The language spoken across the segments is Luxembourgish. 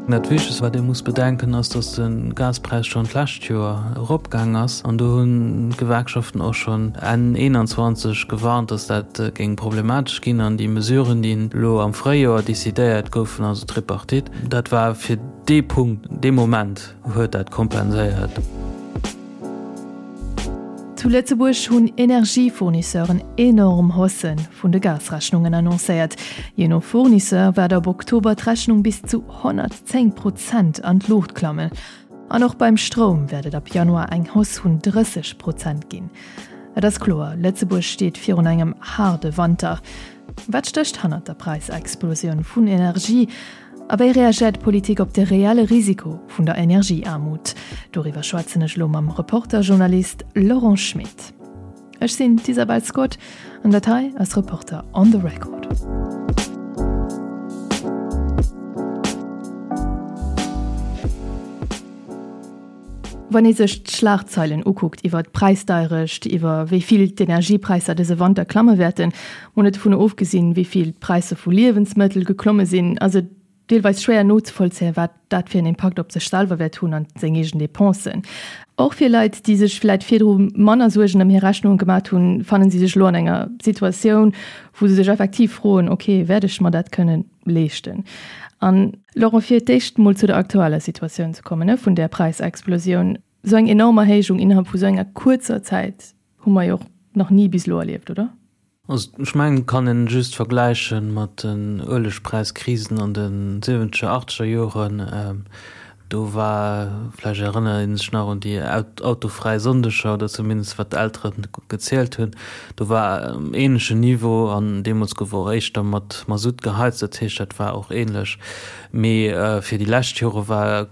Dat Wichtegst, wat ee muss bedenken, ass, datt de Gaspräis schonn d'lescht Joer eropgaang ass. An do hunn d'Gewerkschaften och schonn Enn 21 gewarnt, datt dat géing problematesch ginn. An déi Mesuren, déi elo am Fréijoer decidéiert goufen, also d'Tripartite, dat war fir dee Punkt, dee Moment huet dat kompenséiert. Zu Lëtzebuerg hunn Energiefournisseuren enorm Haussë vun de Gasrechnungen annoncéiert. Jee no Fournisseur wäert ab Oktober d'Rechnung bis zu 110 Prozent an d'Luucht klammen. An och beim Stroum wäert et ab Januar eng Hausse vun 30 Prozent ginn. Et ass kloer, Lëtzebuerg steet virun engem haarde Wanter. Wat stécht hannert der Präisexplosioun vun Energie? A wéi reagéiert d'Politik op de reelle Risiko vun der Energieaarmut? Doriwwer schwätzen ech elo mam Reporter-Journalist Laurent Schmit. Ech sinn d'Isabel Scott an dat hei ass Reporter on the Record. Wann ee sech d'Schlagzeilen ukuckt iwwer d'Präisdeierecht, iwwer wéi vill d'Energiepräisser dëse Wanter klamme wäerten, mol net dovun ofgesinn, wéi vill d'Präisser vu Liewensmëttel geklomme sinn, ass et deelweis schwéier nozevollzéien, wat dat fir en Impakt op sech selwer wäert hunn an seng eegen Depensen. Och fir Leit, déi sech vläit virdru manner Suergen ëm hir Rechnunge gemat hunn, fannen si sech elo an enger Situatioun, wou se sech effektiv froen, ok, wäert ech mer dat kënnen leeschten? An Laurent, fir d'éischt mol zu der aktueller Situatioun ze kommen, ne, vun där Präisexplosioun. Esou eng enorm Erhéijung innerhalb vu sou enger kuerzer Zäit hu mer jo och nach ni bis elo erlieft, oder? Also ech mengen, et kann een just vergläiche mat den Uelegpräiskrisen an de siwwenzeger, achteger Joren. Do war, vläicht erënnert ee sech nach un déi autofräi Sonndeger oder zumindest wat d'Eltere gezielt hunn, do war um änlechen Niveau an deemools gouf och éischter mat Masutt geheizt, dat heescht dat war och änlech. Mee fir déi lescht Jore war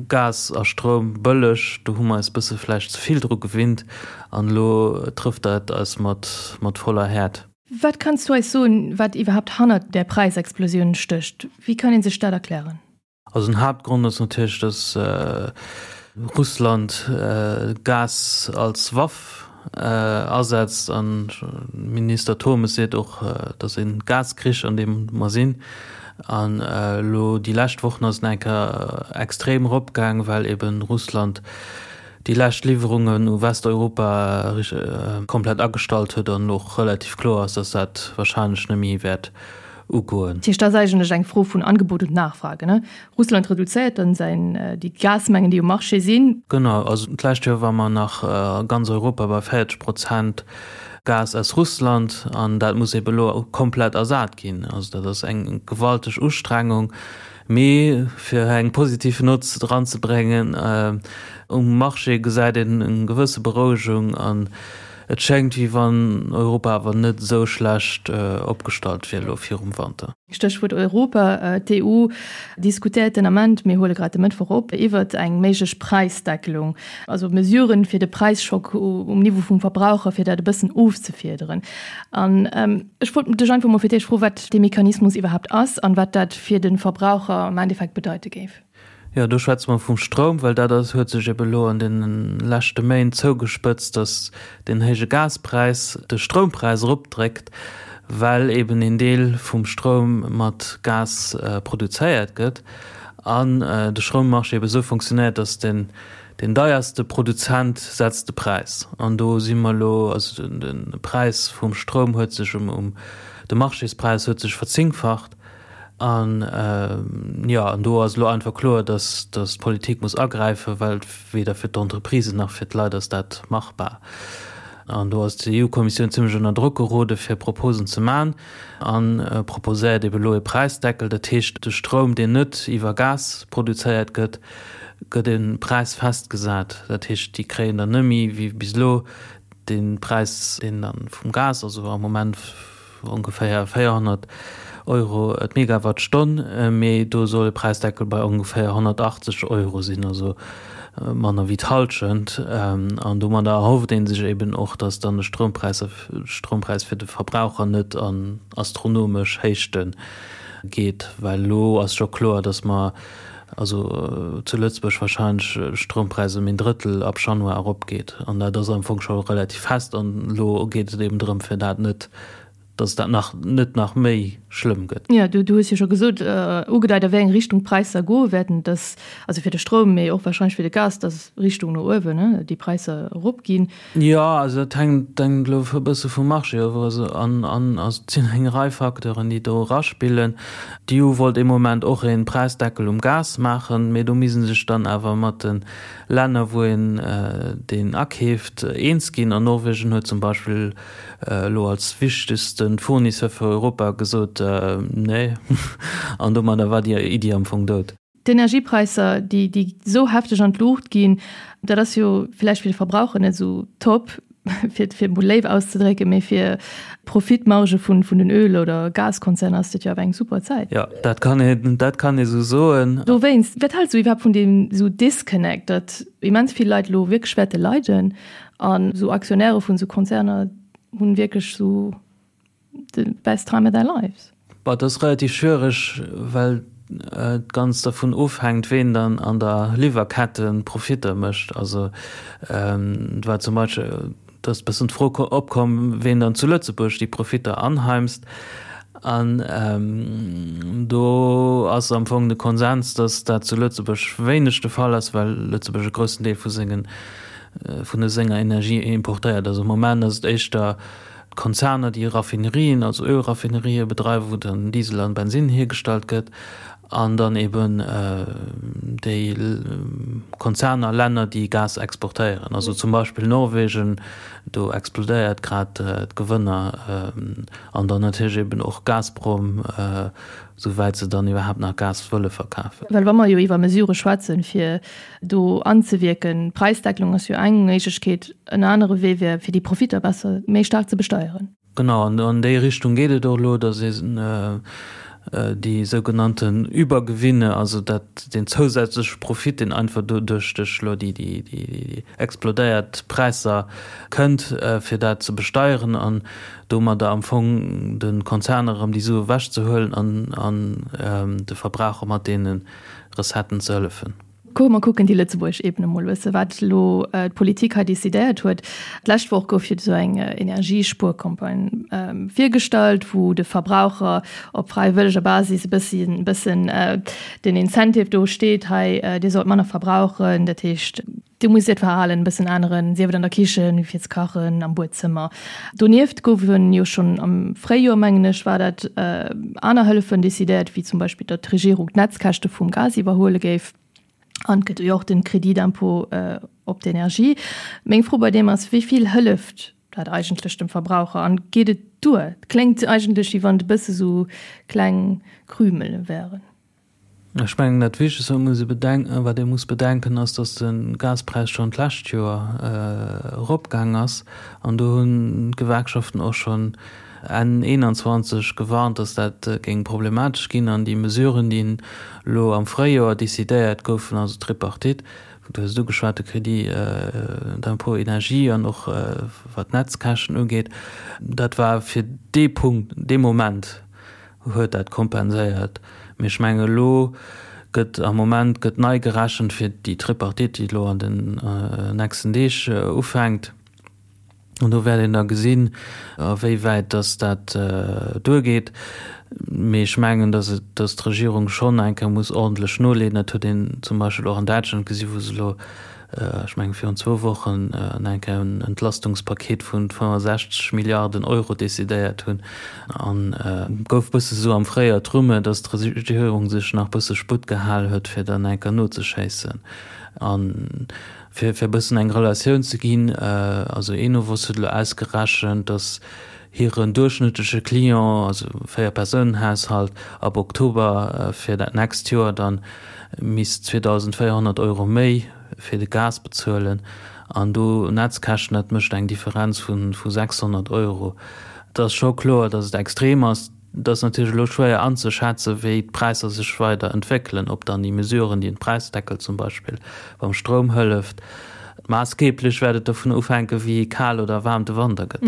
Gas a Stroum bëlleg, do hu mer eis bësse vläicht ze vill dru gewinnt an elo trëfft dat eis mat mat voller Häert. Wat kanns du eis soen, wat iwwerhaapt hannert där Präisexplosioun stécht? Wéi kann ee sech dat erklären? Also den Haaptgrond ass natierlech, datt Russland Gas als Waff asetzt an Minister Turmes seet och, datt e Gaskrich an deem mer sinn. An elo déi lescht Wochen ass et nach eng Kéier extrem eropgaang, well eben Russland déi lescht Liwwerungen u Westeuropa komplett agestallt huet an elo och relativ kloer ass, datt dat warscheinlech net méi wäert ugoen. Dat heescht, dat ass eigentlech eng Fro vun Angebot und Nachfrage, ne? Russland reduzéiert dann säin, déi Gasmengen, déi um Marché sinn. Genau, also d'lescht Joer war mer nach a ganz Europa bei 40 Prozent Gas aus Russland an dat muss ebe elo komplett ersat ginn. Also dat ass eng gewalteg Ustrengung. Mee fir eng positiv Nott eranzebréngen, um Marché gesäit een eng gewësse Berouegung an Et schéngt, wéi wann Europa awer net esou schlecht opgestallt wier elo virum Wanter. Stéchwuert Europa, D'EU diskutéiert den Ament, mir huele grad de Mëttwoch op, iwwert eng méiglech Präisdeckelung, also Mesuren, fir de Präisschock um Niveau vum Verbraucher, fir dat e bëssen ofzefiederen. An ech wollt dech einfach mol fir d'éischt froen, wat dee Mechanismus iwwerhaapt ass an wat dat fir de Verbraucher am Endeffekt bedeite géif. Jo, do schwätze mer vum Stroum, well dat ass, huet sech ebe lo an deene leschte Méint zougespëtzt, datt deen héije Gaspräis de Stroumpräis eropdréckt, well eben een Deel vum Stroum mat Gas produzéiert gëtt an de Stroummarché ebe sou funktionéiert, datt den, deen deierste Produzent setzt de Präis. An do si mer elo, also de Präis vum Stroum huet sech um, de Marchéspräis huet sech verzéngfacht. An, jo, an do ass elo einfach kloer, dass, dass d'Politik muss agräifen, well weder fir d'Entreprisen nach fir d'Leit ass dat machbar. An do ass d'EU-Kommissioun zimlech ënner Drock gerode fir Proposen ze man a proposéiert ebe elo e Präisdeckel. Dat heescht, de Stroum, deen net iwwer Gas produzéiert gëtt, gëtt e Präis festgesat. Dat heescht, déi kréien dann net méi wéi bis elo dee Präis, deen dann vum Gas, also am Moment, Ongeféier 400 Euro d'Megawattstonn, mee do soll e Präisdeckel bei ongeféier 180 Euro sinn, also manner wéi d'Hallschent. An domadder erhofft ee sech eben och, datt dann de Stroumpräis Stroumpräis fir de Verbraucher net an astronomesch Héichte geet, well elo ass scho kloer, datt mer also zu Lëtzebuerg warscheinlech de Stroumpräis ëm een Drëttel ab Januar eropgeet. An dat ass am Fong scho relativ fest. An elo geet et eben drëm, fir dat net. Dass dat nach net nach méi schlëmm gëtt. Jo, du hues jo scho gesot, ugedeit a wéi eng Richtung d'Präisser goe wäerten, dass, also fir de Stroum, mee och warscheinlech fir de Gas, dass Richtung no uewen, ne, déi Präisser eropginn. Jo, also dat hänkt hänkt elo e bësse vum Marché of. Also an an also et sinn eng Rei Facteuren, déi do eraspillen. D'EU wollt ee Moment och ee Präisdeckel um Gas maachen, mee do misst ee sech dann awer mat de Länner, wou een deen akeeft, eens ginn. An Norwegen huet zum Beispill elo als wichtegste Fournisseur fir Europa gesot, Nee. An domadder war déi Iddi am Fong dout. D'Energiepräisser, déi déi esou hefteg an d'Luucht ginn, dat ass jo villäicht fir de Verbraucher net esou top, fir et fir emol léif auszedrécken, mee fir d'Profitmarge vun vun den Öl oder Gaskonzerner ass dat jo awer eng super Zäit. Jo, dat kann een, dat kann ee sou soen. Dowéinst, wat haals du iwwerhaapt vun deem esou Disconnect, datt immens vill Leit elo wierklech wäerte leiden An sou Aktionäre vun sou Konzerner hunn wierklech sou the best time of their lives. Bah, dat ass relativ schwiereg, well et ganz dervun ofhänkt, ween dann an der Liwwerkette Profitter mécht. Also et war zum Beispill, et ass e bëssen d'Fro opkomm, ween dann zu Lëtzebuerg déi Profitter anheimst. An do ass am Fong de Konsens, datt dat zu Lëtzebuerg wéineg de Fall ass, well Lëtzebuerg e groussen Deel vu sengen, vun de senger Energie importéiert. Also am Moment ass et éischter d'Konzerner, déi Raffinerien, also Ölraffinerië bedreiwen, wou dann Diesel an Bensinn hiergestallt gëtt, an dann eben déi Konzerner, Länner, déi Gas exportéieren. Also zum Beispill Norwegen, do explodéiert grad d'Gewënner. An dann natierlech eben och Gazprom, souwäit se dann iwwerhaapt nach Gas wëlle verkafen. Well wa mer jo iwwer Mesurë schwätzen, fir do anzewierken, Präisdeckelung ass jo eng Méiglechkeet, en anere Wee wär, fir déi Profitter besser, méi staark ze besteieren. Genau, an an déi Richtung geet et och elo, datt een déi sougenannten Übergewinne, also dat, deen zousätzleche Profit, deen einfach doduerch duerch elo déi, déi explodéiert Präisser kënnt, fir dat ze besteieren an domadder am Fong de Konzerner erëm déi Sue ewechzehuelen an de Verbraucher mat deene Recetten ze hëllefen. Komm mer kucken déi lëtzebuergesch Ebene mol e bësse wat elo d'Politik hei decidéiert huet. D'lescht Woch gouf jo esou eng Energiespuercampagne virgestallt, wou de Verbraucher op fräiwëlleger Basis e bëssi e bëssen den Incentive do steet, hei dir sollt manner verbrauchen, dat heescht, Dir musst Äert Verhalen e bëssen änneren, sief et an der Kichen, fir ze kachen, am Buedzëmmer. Donieft goufen jo schonn am Fréijoer, mengen ech war dat, aner Hëllefen decidéiert, wéi zum Beispill, datt d'Regierung d'Netzkäschte vum Gas iwwerhuele géif. An et gëtt jo och de Crédit d'impôt op d'Energie. Meng Fro bei deem ass, Wéi vill hëlleft dat eigentlech dem Verbraucher an geet et duer? Et kléngt eigentlech, wéi wann et e bësse sou kleng Krümele wären. Ech mengen, dat Wichtegst, wat muss ee bedenken, wat ee muss bedenken, ass, datt de Gaspräis schonn d'lescht Joer eropgaang ass. An do hunn d'Gewerkschaften och schonn Enn 21 gewarnt, datt dat géing problematesch ginn. An déi Mesuren, déi elo am Fréijoer decidéiert goufen, also d'Tripartite, du hues et ugeschwat, de Crédit d'impôt énergie an och wat d'Netzkäschten ugeet, dat war fir dee Punkt, dee Moment, huet dat kompenséiert. Mee ech mengen, elo gëtt am Moment gëtt nei gerechent fir déi Tripartite, déi elo an den nächsten Deeg ufänkt. An do wäert een da gesinn, a wéi wäit datt dat duergeet. Mee ech mengen, datt et, datt d'Regierung schonn eng Kéier muss ordentlech noleeën. Dat huet een zum Beispill och an Däitschland gesi wou se elo ech mengen virun zwou Wochen, eng Kéier en Entlastungspaket vu 65 Milliarden Euro decidéiert hunn. An et gouf e bësse sou am Fréijoer d'Rumeur, datt d'Regierung sech nach e bësse Sputt gehal huet, fir dann eng Kéier nozeschéissen. A fir e bëssen eng Relatioun ze ginn, also Enovos huet elo ausgerechent, datt hiren duerchschnëttleche Client, also Véier-Persounen-Haushalt, ab Oktober fir dat nächst Joer dann misst 2.400 Euro méi fir de Gas bezuelen an do Netzkäschten, dat mécht eng Differenz vu 600 Euro. Et ass scho kloer, datt et extrem ass. Et ass natierlech elo schwéier anzeschätzen, wéi d'Präisser sech weider entwéckelen, ob dann déi Mesuren, déi den Präisdeckel zum Beispill beim Stroum hëlleft, maassgeeblech wäert et dovun ofhänken, wéi kal oder waarm de Wanter gëtt.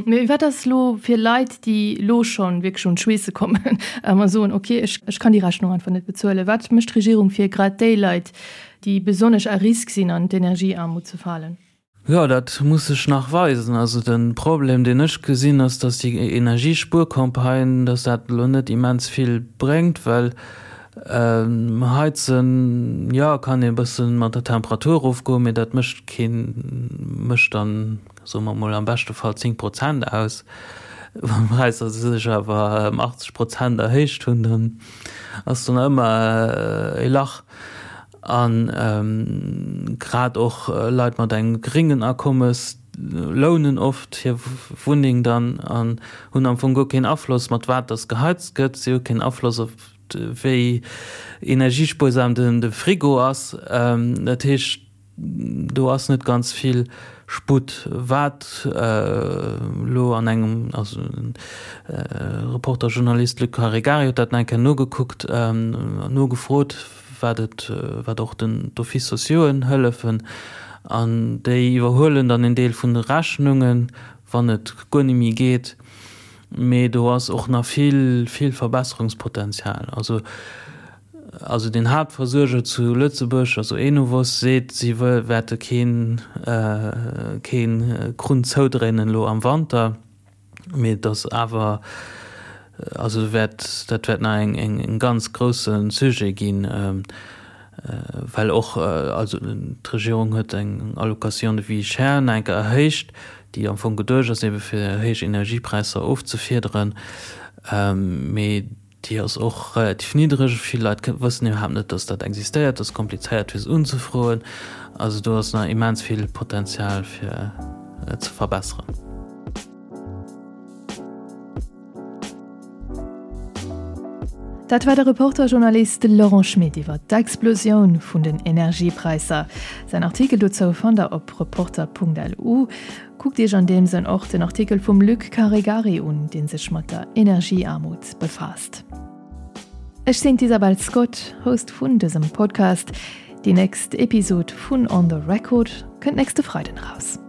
Mee wat ass elo fir Leit, déi elo scho wierklech un d'Schweesse kommen a soen, ok, ech kann déi Rechnung einfach net bezuelen? Wat mécht d'Regierung fir grad déi Leit, déi besonnesch à risque sinn, an d'Energieaarmut ze falen? Jo, dat muss sech nach weisen. Also de Problem, deen ech gesinn, ass, datt déi Energiespuercampagne, datt dat elo net immens vill bréngt, well heizen, jo, kann ee e bësse mat der Temperatur erofgoen, mee dat mécht keen, mécht dann, soe mer emol, am beschte Fall 10 Prozent aus. Wann d'Präisser sech awer ëm 80 Prozent erhéicht hunn, dann ass do nach ëmmer e Lach. A grad och Leit mat engem geréngen Akommes lounen oft hir Wunneng dann an hunn am Fong guer keen Afloss, mat wat dass geheizt gëtt. Si hu keen Afloss op wéi energiespuersam de Frigo ass. Dat heescht, Do ass net ganz vill Sputt. Wat elo an engem, also de Reporter-Journalist Luc Caregari huet dat nach eng Kéier nogekuckt, nogefrot, wat et, wat och den d'Offices sociauxen hëllefen. An déi iwwerhuelen dann en Deel vun de Rechnungen, wann et guer net méi geet. Mee do ass och nach vill, vill Verbesserungspotenzial. Also Also den Haaptversuerger zu Lëtzebuerg, also Enovos, seet, si wäerte keen keen Krunn zoudréinen elo am Wanter, mee et ass awer, also wäert dat wäert nach eng eng ganz grousse Sujet ginn, well och also d'Regierung huet eng Allocation de vie chère nach eng Kéier erhéicht, déi am Fong geduecht ass ebe fir héich Energiepräisser ofzefiederen, mee Déi ass och relativ niddreg. Vill Leit wëssen iwwerhaapt net, dass dat existéiert. Dat ass komplizéiert fir se unzefroen. Also do ass nach immens vill Potenzial fir ze verbesseren. Dat war de Reporter-Journalist Laurent Schmit iwwer d'Explosioun vun den Energiepräisser. Säin Artikel dozou fannt der op reporter.lu. Kuckt Iech an deem Sënn och den Artikel vum Luc Caregari un, dee sech mat der Energieaarmut befaasst. Ech sinn d'Isabel Scott, Host vun dësem Podcast. Déi nächst Episod vun On the Record kënnt nächste Freiden eraus.